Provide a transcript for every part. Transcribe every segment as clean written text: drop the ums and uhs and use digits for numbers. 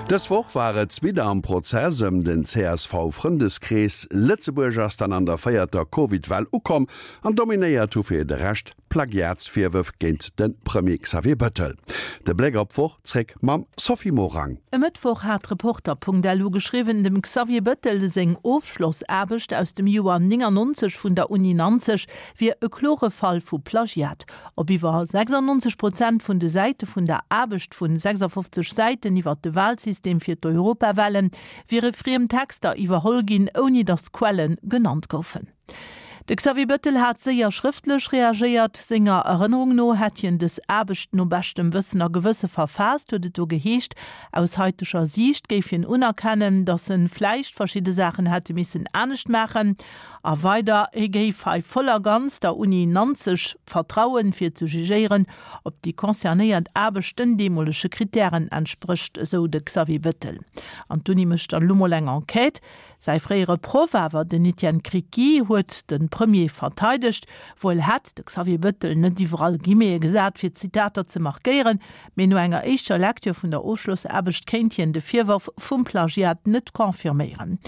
Dës Woch war et widder am Prozess ëm den CSV-Frëndeskrees. Lëtzebuerg ass dann an der véierter Covid-Well ukomm an dominéiert hu fir de Rescht Plagiatsvirwërf géint de Premier Xavier Bettel. De Bléck op d'Woch zréck mam Sophie Morang. E Mëttwoch hat Reporter.lu geschriwwen, dem Xavier Bettel seng Ofschlossaarbecht aus dem Joer 99 vun der Uni Nanzeg wier e klore Fall vu Plagiat. Op iwwer 96 Prozent vun de Säite vun der Aarbecht vun 56 Säiten iwwer de Walsystem fir d'Europawale wiere friem Texter iwwerholl ginn, ouni datt Quelle genannt goufen. De Xavier Bettel hat séier schrëftlech reagéiert. Senger Erënnerung no hätt hien dës Aarbecht no beschtem Wëssen a Gewësse verfaasst, huet et do geheescht. Aus haiteger Siicht géif hien unerkennen, datt en vläicht verschidde Saachen hätte missen anescht maachen. A weider, hie géif hei voll a ganz der Uni Nanzeg vertrauen, fir ze jugéieren, ob déi concernéiert Aarbecht den deemolege Krittären entsprécht, esou de Xavier Bettel. An d'Uni mécht dann elo mol eng Enquête. Säi fréiere Proff awer, den Etienne Criqui, huet de Premier verteidegt. Wuel hätt de Xavier Bettel net iwwerall Guillemete gesat, fir d'Zitater ze markéieren, mee no enger éischter Lecture vun der Ofschlossaarbecht kéint hien de Virworf vum Plagiat net confirméieren.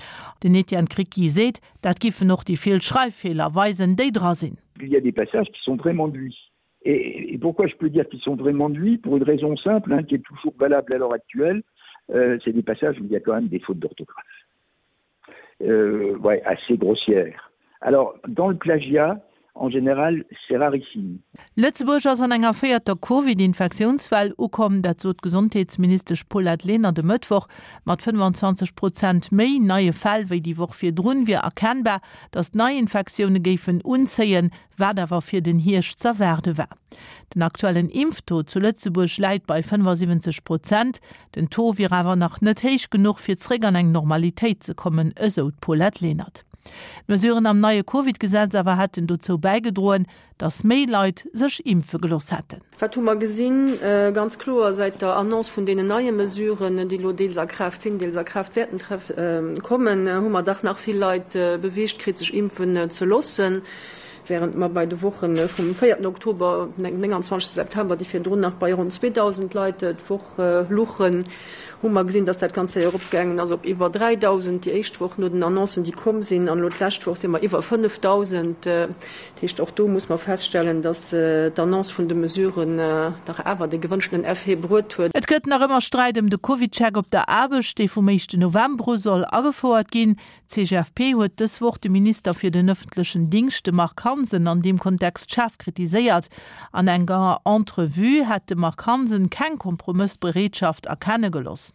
Den Etienne Criqui seet, dat giffen och déi vill Schreiffeeler weisen, déi dra sinn. Il y a des passages qui sont vraiment de lui. Et, et pourquoi je peux dire qu'ils sont vraiment de lui pour une raison simple hein, qui est toujours valable à l'heure actuelle, euh, c'est des passages où il y a quand même des fautes d'orthographe. Euh, ouais, assez grossières. Alors dans le plagiat, en général, c'est rarissime. Lëtzebuerg ass an enger véierter Covid-Infektiounswell ukomm. Dat sot d'Gesondheetsministesch Paulette Lenert e Mëttwoch. Mat 25 Prozent méi neie Fäll wéi déi Woch virdrun wier erkennbar, datt d'Neiinfektioune géifen unzéien, wat awer fir den Hierscht z'erwaarde war. Den aktuellen Impftaux zu Lëtzebuerg läit bei 75 Prozent. Den Taux wier awer nach net héich genuch, fir zréck an eng Normalitéit ze kommen, esou d'Paulette Lenert. D'Mesuren am neie Covid-Gesetz awer hätten dozou bäigedroen, datt méi Leit sech impfe gelooss hätten. Wat hu mer gesinn? Ganz kloer, säit der Annonce vun deenen neie Mesuren, déi elo deels a Kraaft sinn, deels a Kraaft wäerten kommen, hu mer dach nach vill Leit beweegt kritt, sech impfen ze loossen. Während mer bei de Woche vum véierten Oktober op den 29 September, déi virdrun nach bei ronn 2.000 Leit d'Woch luchen, hu mer gesinn, dass dat ganz séier eropgaangen ass op iwwer 3.000 déi éischt Woch no den Annoncen, déi komm sinn. An elo d'lescht Woch si mer iwwer 5.000. Dat heescht, och do muss mer feststellen, dass d'Annonce vun de Mesuren dach awer de gewënschtenen Effet bruet huet. Et gëtt nach ëmmer Sträit ëm de CovidCheck op der Aarbecht, dee vum éischten November u soll agefouert ginn. D'CGFP huet dës Woch de Minister fir den ëffentlechen Dingscht, de Marc Hansen, an deem Kontext schaarf kritiséiert. An enger Entrevue hätt de Marc Hansen keng Kompromëssbereetschaft erkenne geloss.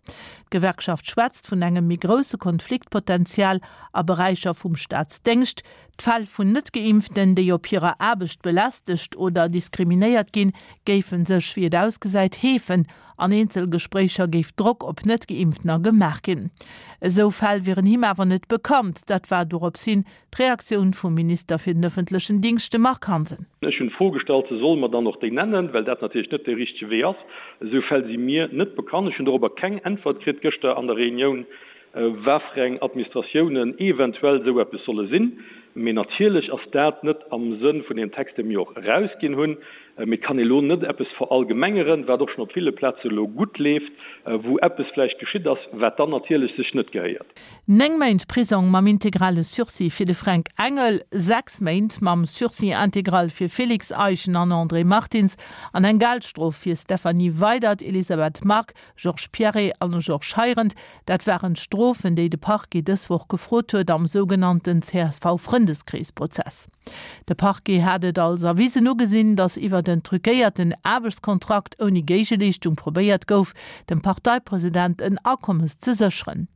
D'Gewerkschaft schwätzt vun engem méi grousse Konfliktpotenzial a Beräicher vum Staatsdéngscht. D'Fäll vun Net-Geimpften, déi op hirer Aarbecht belästegt oder diskriminéiert ginn, géife sech, wéi et ausgesäit, heefen. An Eenzelgespréicher géif Drock op Net-Geimpftener gemaach ginn. Esou Fäll wieren him awer net bekannt. Dat war dorops hin d'Reaktioun vum Minister fir den ëffentlechen Dingscht, de Marc Hansen. Ech hunn d'Fro gestallt, se solle mer dann och déi nennen, well dat natierlech net dee richtege Wee ass. Esou Fäll si mir net bekannt. Ech hunn dorobber keng Äntwert kritt gëschter an der Reunioun, wat fir eng Administratiounen eventuell esou eppes solle sinn. Mee natierlech ass dat net am Sënn vun deem Text, dee mir och erausginn hunn. Mee et kann ee lo net eppes verallgemengeren, wat och schonn op ville Plaze lo gutt leeft, wou eppes vläicht geschitt ass, wat dann natierlech sech net gehéiert. 9 Méint Prisong mam integrale Sursis fir de Fränk Engel, 6 Méint mam Sursis intégral fir Félix Eischen an André Martins an eng Geldstrof fir Stéphanie Weydert, Elisabeth Margue, Georges Pierret an Georges Heirendt. Dat waren d'Strofen, déi de Parquet dës Woch gefrot huet am sougenannten CSV-Frëndeskrees-Prozess. De Parquet hat et als erwisen ugesinn, datt iwwert en truquéierten Aarbechtskontrakt ouni Géigeleeschtung probéiert gouf, dem Parteipresident en Akommes ze sécheren.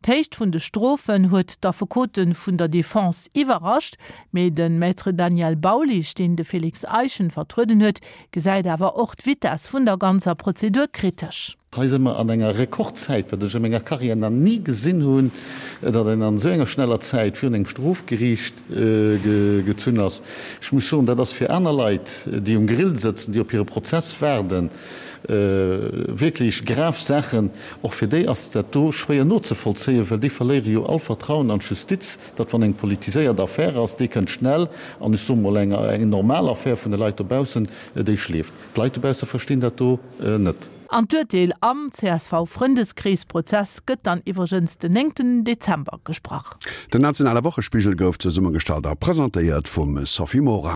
D'Héicht vun de Strofen huet d'Affekote vun der Defense iwwerrascht, mee de Maître Daniel Baulisch, deen de Félix Eischen vertrueden huet, gesäit awer och d'Vitess vun der ganzer Prozedur kritesch. Hei si mer an enger Rekordzäit, wat ech a menger Karriär nach ni gesinn hunn, datt een an esou enger schneller Zäit virun engem Strofgeriicht gezunn ass. Ech muss soen, dat ass fir aner Leit, déi um Grill sëtzen, déi op hire Prozess waarden, wierklech grav Saachen. Och fir déi ass dat do schwéier nozevollzéien, well déi verléiere jo all Vertrauen an d'Justiz, datt wann eng politiséiert Affär ass, déi kënnt schnell, an ech soe mol eng normal Affär vun de Leit dobaussen, déi schleeft. D'Leit dobausse verstinn dat do net. An d'Urteel am CSV-Frëndeskrees-Prozess gëtt dann iwwregens den 9 Dezember gesprach. Den nationale Wochespigel gouf zesummegestallt a presentéiert vum Sophie Morang.